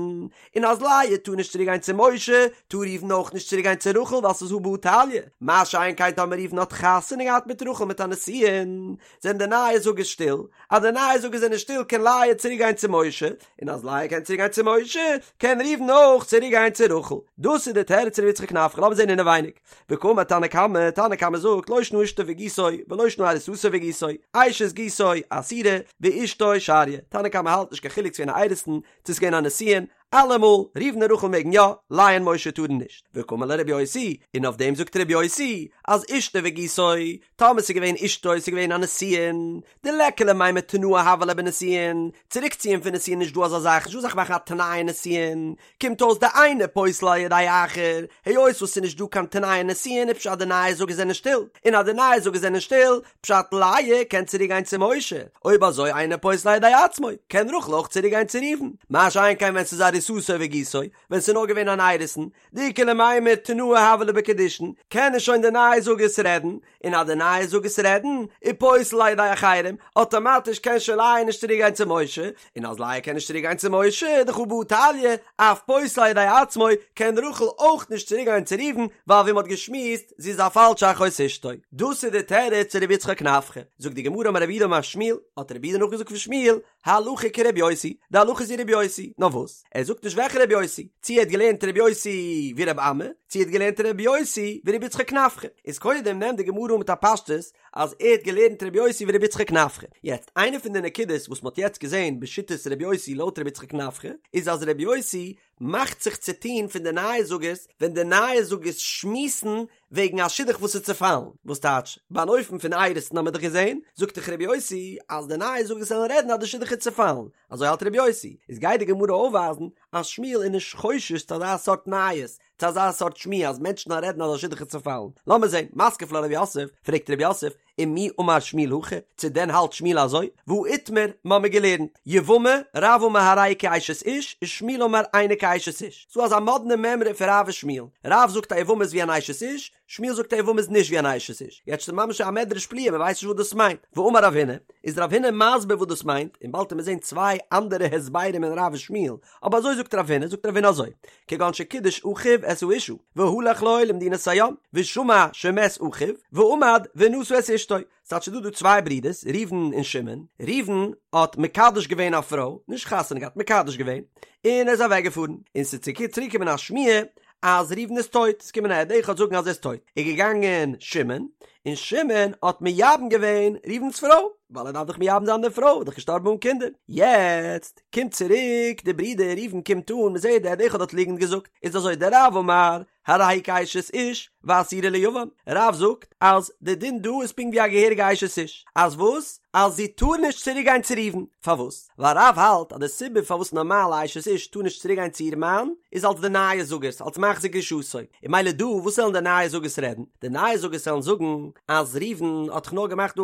און אז לאה טאר נישט צוריק גיין צו משה, טאר ראובן אויך נישט צוריק גיין צו רחל ווייל ס'איז הא בהא תליא, מה שאין כן טאמער ראובן האט חתונה געהאט מיט רחל מיט א נישואין, זענען די נייע זוגות שטיל, אז די נייע זוגות זענען שטיל קען לאה צוריק גיין צו משה, און אז לאה קען צוריק גיין צו משה, קען ראובן אויך צוריק גיין צו רחל. דאס איז די תירוץ ר' יצחק נפחא, לאמיר זען אינעווייניג. וקאמר תנא קמא, תנא קמא זאגט, לא שנא אשתו וגיסו, ולא שנא ארוסתו וגיסו, אשת גיסו אסורה, ואשתו שריא. תנא קמא האלט נישט קיין חילוק צו ס'געווען א אירוסין, צו ס'איז געווען א נישואין, אלעמאל, ראובן און רחל מעגן יא, לאה און משה טארן נישט. וקאמר ליה רבי יוסי, און אויף דעם זאגט רבי יוסי, אז אשתו וגיסו, טאמער ס'איז געווען אשתו ס'איז געווען א נישואין, דליכא למימר תנאה הוה ליה בנישואין, צוריקציען פון נישואין נישט דא אזא זאך, נישט דא אזא זאך מאכן א תנאי אין נישואין, קומט אויס דאינו פוסל על ידי אחר, היות וואס ס'איז נישט דא קיין תנאי אין נישואין איז פשט די נייע זוגות זענען שטיל, און אז די נייע זוגות זענען שטיל, פשט לאה קען צוריק גיין צו משה, אויב אזוי אינו פוסל על ידי עצמו, קען רחל אויך צוריק גיין צו ראובן, מה שאין כן ווען ס'איז ארוסתו וגיסו, ווען ס'איז נאר געווען אן אירוסין, דאיכא למימר תנאה הוה ליה בקידושין, קענען שוין די נייע זוגות רעדן, און אז די נייע זוגות רעדן, איז פוסל על ידי אחרים, אטאמאטיש קען שוין לאה נישט צוריק גיין צו משה, און אז לאה קען נישט צוריק גיין צו משה, דאך הא בהא תליא, אף פוסל על ידי עצמו, קען רחל אויך נישט צוריק גיין צו ראובן, ווייל ווי מ'האט געשמועסט, זי איז א פאלשע אחות אשתו. דאס איז די תירוץ צו רבי יצחק נפחא. זאגט די גמרא אמר רב יהודה אמר שמואל, האט רב יהודה נאכגעזאגט פון שמואל, הלכה כרבי יוסי, די הלכה איז ווי רבי יוסי, נאר וואס? ער זאגט נישט וועלכע רבי יוסי, צו ער האט געלערנט רבי יוסי ווי רבי אמי, צו ער האט געלערנט רבי יוסי ווי רבי יצחק נפחא. איז קודם נעמט די גמרא אן מיט א פשטות אז ער האט געלערנט רבי יוסי ווי רבי יצחק נפחא. יעצט, איינע פון די נקודות וואס מ'האט יעצט געזען בשיטת רבי יוסי לויט רבי יצחק נפחא, איז אז רבי יוסי מאכט זיך צו טון פון די נייע זוגות ווען די נייע זוגות שמועסן וועגן א שידוך וואס איז צעפאלן, וואס טייטש, ביי אן אופן פון אירוסין האמיר דאך געזען, זאגט דאך רבי יוסי אז די נייע זוגות וועלן רעדן אז די שידוך איז צעפאלן, אזוי האלט רבי יוסי, איז גייט די גמרא אויפווייזן אז שמואל איז נישט חושש צו אזא סארט נייעס, צו אזא סארט שמועה אז מענטשן וועלן רעדן אז א שידוך איז צעפאלן. לאמיר זען, מתקיף לה רב יוסף, פרעגט רב יוסף, ומי אמר שמואל הכי, צו דען האלט שמואל אזוי? והא איתמר, מ'האמיר געלערנט, יבמה, רב אמר הרי היא כאשת איש, ושמואל אמר אינה כאשת איש. ס'דא אזא מאדנע מימרא פון רב ושמואל. רב זאגט א יבמה איז ווי אן אשת איש, שמואל זאגט א יבמה איז נישט ווי אן אשת איש. יעצט איז ממש א מדרש פליאה, מ'ווייסט נישט וואס דאס מיינט. ואמר רב הונא, איז רב הונא מסביר וואס דאס מיינט, און באלד וועט מען זען צוויי אנדערע הסברים אין רב ושמואל, אבער אזוי זאגט רב הונא, זאגט רב הונא אזוי, כגון שקידש אחיו את האשה, והלך לו למדינת הים, ושמע שמת אחיו, ועמד ונשא את אשתו. ס'טייטש ס'דא דא צוויי ברידערס, ראובן און שמעון, ראובן האט מקדש געווען א פרוי, נישט חתונה געהאט, מקדש געווען, און ער איז אוועק געפארן, און ס'איז צוריק געקומען א שמועה אז ראובן איז טויט, ס'איז געקומען א עד אחד זאגן אז ער איז טויט, איז געגאנגען שמעון, און שמעון האט מייבם געווען ראובן'ס פרוי, ווייל ער דארף דאך מייבם זיין די פרוי, איז דאך געשטארבן אן קינדער, יעצט קומט צוריק די ברודער ראובן קומט אן, מ'זעט די עד אחד האט ליגנט געזאגט, איז אזוי דרב אמר הרי היא כאשת איש ואסורה ליבם, רב זאגט אז די דין דא איז פונקט ווי א געהעריגע אשת איש, אז וואס? אז זי טאר נישט צוריק גיין צו ראובן, פארוואס? ווייל רב האלט אז די סיבה פארוואס נארמאל א אשת איש טאר נישט צוריק גיין צו איר מאן איז אלס די נייע זאגערס, אלס מחזיר גרושתו, און ממילא דא וואס וועלן די נייע זאגערס רעדן? די נייע זאגערס וועלן זאגן אז ראובן האט דאך נאר געמאכט דא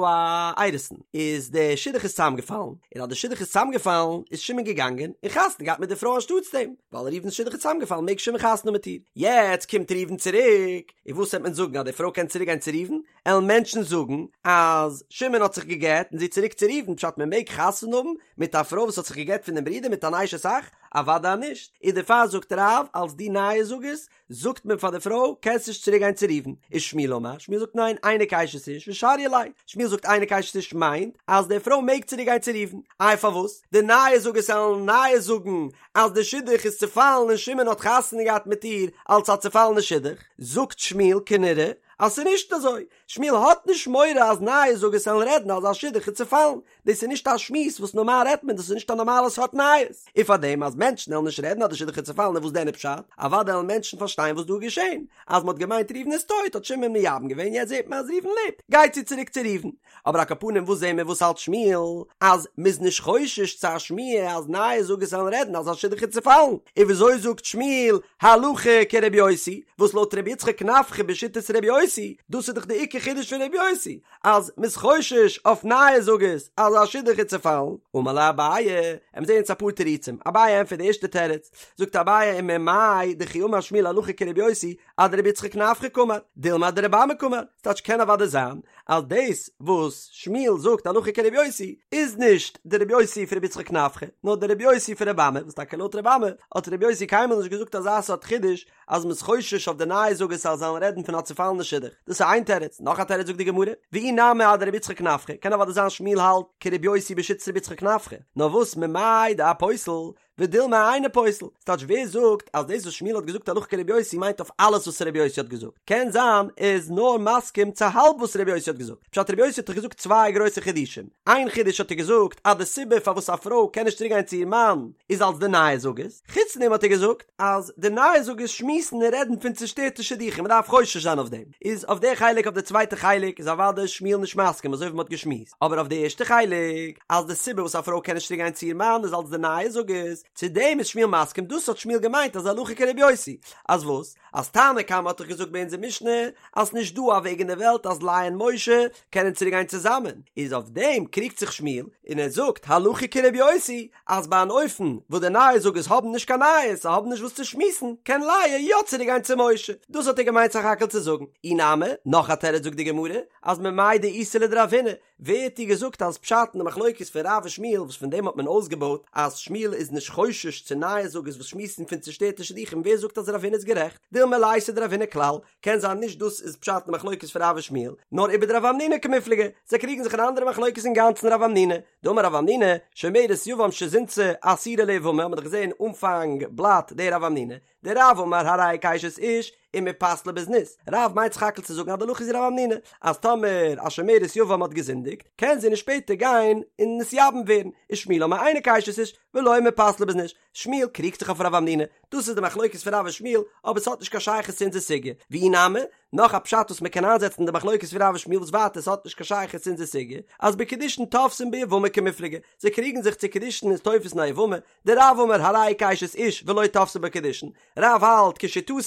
א אירוסין, איז די שידוך איז צוזאמגעפאלן, און אז די שידוך איז צוזאמגעפאלן איז שמעון געגאנגען און חתונה געהאט מיט די פרוי אנשטאטס דעם. ווייל ראובן'ס שידוך איז צוזאמגעפאלן מעג שמעון חתונה מיט איר. יעצט קומט ראובן צוריק, און וואס וועט מען זאגן אז די פרוי קען צוריק גיין צו ראובן? עלן מענטשן זאגן אז שמעון האט זיך גע'גט און זי צוריק צו ראובן, פשט מען מעג חתונה האבן מיט א פרוי וואס האט זיך גע'גט פון דעם ברודער מיט אן אשת אח? אוודאי נישט, איז דערפאר זאגט רב אלס די נייעס זאגערס זאגט מען פאר די פרוי קענסט נישט צוריק גיין צו ראובן, ושמואל אמר, שמואל זאגט ניין אינה כאשת איש ושריא ליה, שמואל זאגט אינה כאשת איש מיינט אז די פרוי מעג צוריק גיין צו ראובן, איי פארוואס? די נייעס זאגערס עלן נייעס זאגן אז די שידוך איז צופאלן און שמעון האט חתונה געהאט מיט איר אלס א צופאלענע שידוך, זאגט שמואל כנראה אז ס'איז נישט אזוי, שמואל האט נישט מורא אז נייעס זאגערס עלן רעדן אז א שידוך איז צופאלן, דאס איז נישט א שמועס וואס נארמאל רעדט מען, דאס איז נישט א נארמאלע סארט נייעס, און פארדעם אז מענטשן עלן נישט רעדן אז די שידוך איז צופאלן איז וואס דען איז פשט? אוודאי עלן מענטשן פארשטיין וואס דא איז געשען, אז מ'האט געמיינט ראובן איז טויט האט שמעון מייבם געווען יעצט זעט מען אז ראובן לעבט, גייט זי צוריק צו ראובן. אבער על כל פנים וואס זעהן מיר וואס האלט שמואל אז מ'איז נישט חושש צו א שמועה אז נייעס זאגערס עלן רעדן אז א שידוך איז צופאלן, און וויאזוי זאגט שמואל הלכה כרבי יוסי, וואס לויט רבי יצחק נפחא בשיטת רבי יוסי, דאס איז דאך די עיקר חידוש פון רבי יוסי, אז מ'איז חושש אויף נייעס זאגערס אז א שידוך איז צופאלן, אמר ליה אביי, עמיר זעהן יעצט אפאר תירוצים, אביי ענטפערט די ערשטע תירוץ, זאגט אביי וממאי דכי אמר שמואל הלכה כרבי יוסי, אדרבי יצחק נפחא קאמר, דילמא אדרבי אמי קאמר, ס'טייטש קען אוודאי זיין אז דאס וואס שמואל זאגט הלכה כרבי יוסי איז נישט די רבי יוסי פון רבי יצחק נפחא, נאר די רבי יוסי פון רבי אמי, וואס טאקע לויט רבי אמי האט רבי יוסי קיינמאל נישט געזאגט אזא סארט חידוש אז מ'איז חושש אויף די נייעס זאגערס אז זיי זאלן רעדן פון א צופאלענע שידוך, דאס איז איין תירוץ, נאך א תירוץ זאגט די גמרא, ואי נמי אדרבי יצחק נפחא, קען אוודאי זיין שמואל האלט כרבי יוסי בשיטת רבי יצחק נפחא, נאר וואס ממאי דאפוסל ודילמא אינו פוסל, ס'טייטש ווער זאגט אז דאס וואס שמואל האט געזאגט הלכה כרבי יוסי מיינט אויף אלעס וואס רבי יוסי האט געזאגט? קען זיין ער איז נאר מסכים צו האלב וואס רבי יוסי האט געזאגט, פשט רבי יוסי האט דאך געזאגט צוויי גרויסע חידושים, איין חידוש האט ער געזאגט אז די סיבה פארוואס א פרוי קען נישט צוריק גיין צו איר מאן איז אלס די נייעס זאגערס, חוץ דעם האט ער געזאגט אז די נייעס זאגערס שמועסן און רעדן פון צושטערטע שידוכים מ'דארף חושש זיין אויף דעם, איז אויף די חלק אויף די צווייטע חלק איז אוודאי שמואל נישט מסכים אזוי ווי מ'האט געשמועסט, אבער אויף די ערשטע חלק אז די סיבה וואס א פרוי קען נישט צוריק גיין צו איר מאן איז אלס די נייעס זאגערס, צו דעם איז שמואל מסכים, דאס האט שמואל געמיינט אז הלכה כרבי יוסי, אז וואס? אז תנא קמא האט דאך געזאגט ביי אונזער משנה אז ס'נישט דא א וועג אין די וועלט אז לאה און משה קענען צוריק גיין צוזאמען, איז אויף דעם קריגט זיך שמואל און ער זאגט הלכה כרבי יוסי אז ביי אן אופן וואס די נייעס זאגערס האבן נישט קיין נייעס, זיי האבן נישט וואס צו שמועסן, קען לאה יא צוריק גיין צו משה, דאס האט ער געמיינט סך הכל צו זאגן. אי נמי, נאך א תירוץ זאגט די גמרא, אז ממאי דאיתא לדרב הונא, ווער האט דיר געזאגט אז פשט אין די מחלוקת פון רב און שמואל וואס פון דעם האט מען אויסגעבויט אז שמואל איז נישט חושש צו נייעס זאגערס וואס שמועסן פון צושטערטע שידוכים ווער זאגט אז רב הונא איז גערעכט? דילמא ליתא דרב הונא כלל, קען זיין נישט דאס איזפשט אין די מחלוקת פון רב און שמואל, נאר ובדרב המנונא קמיפלגי, זיי קריגן זיך אין א אנדערע מחלוקת אינגאנצן רב המנונא, דאמר רב המנונא, שומרת יבם שזינתה אסורה ליבמה האט מען דאך געזען אנפאנג בלאט די רב המנונא, דרב אמר הרי היא כאשת איש ומפסלה בזנות, רב מיינט סך הכל צו זאגן אז די הלכה איז ווי רב המנונא, אז טאמער א שומרת יבם האט געזינדיגט, קען זי נישט שפעטער גיין און נתייבם ווערן, ושמואל אמר אינה כאשת איש ולא מפסלה בזנות, שמואל קריגט זיך אויף רב המנונא, דאס איז די מחלוקת פון רב און שמואל, אבער ס'האט נישט קיין שייכות צו אונזער סוגיא, ואי נמי, נאך א פשט וואס מ'קען איינזעצן אין די מחלוקת פון רב און שמואל וואס ווייטער ס'האט נישט קיין שייכות צו אונזער סוגיא, אז בקידושין תופסין ביבמה קמיפלגי, זיי קריגן זיך צו קידושין איז תופס אין א יבמה, דרב אמר הרי היא כאשת איש ולא תפסי בה קידושין, רב האלט כשיטתו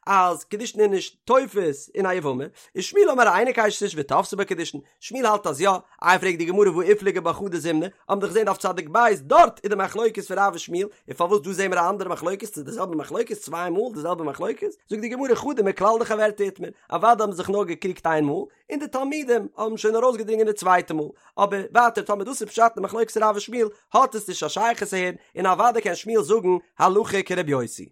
אז קידושין איז נישט תופס אין א יבמה, ושמואל אמר אינה כאשת איש ותפסי בה קידושין, שמואל האלט אז יא, איי פרעגט די גמרא והא איפליגו בה חדא זימנא, האבן דאך געזען דף צדיק בית דארט איז די מחלוקת פון רב און שמואל, און פארוואס דא זעהן מיר א אנדערע מחלוקת, ס'איז די זעלבע מחלוקת צוויי מאל די זעלבע מחלוקת, זאגט די גמרא חדא מכלל דחברתה איתמר, אוודאי האבן זיך נאר געקריגט איין מאל, און די תלמידים האבן שוין ארויסגעדרינגען די צווייטע מאל, אבער ווייטער טאמער דאס איז פשט אין מחלוקת רב און שמואל האט עס נישט א שייכות אהער, און אוודאי קען שמואל זאגן הלכה כרבי יוסי.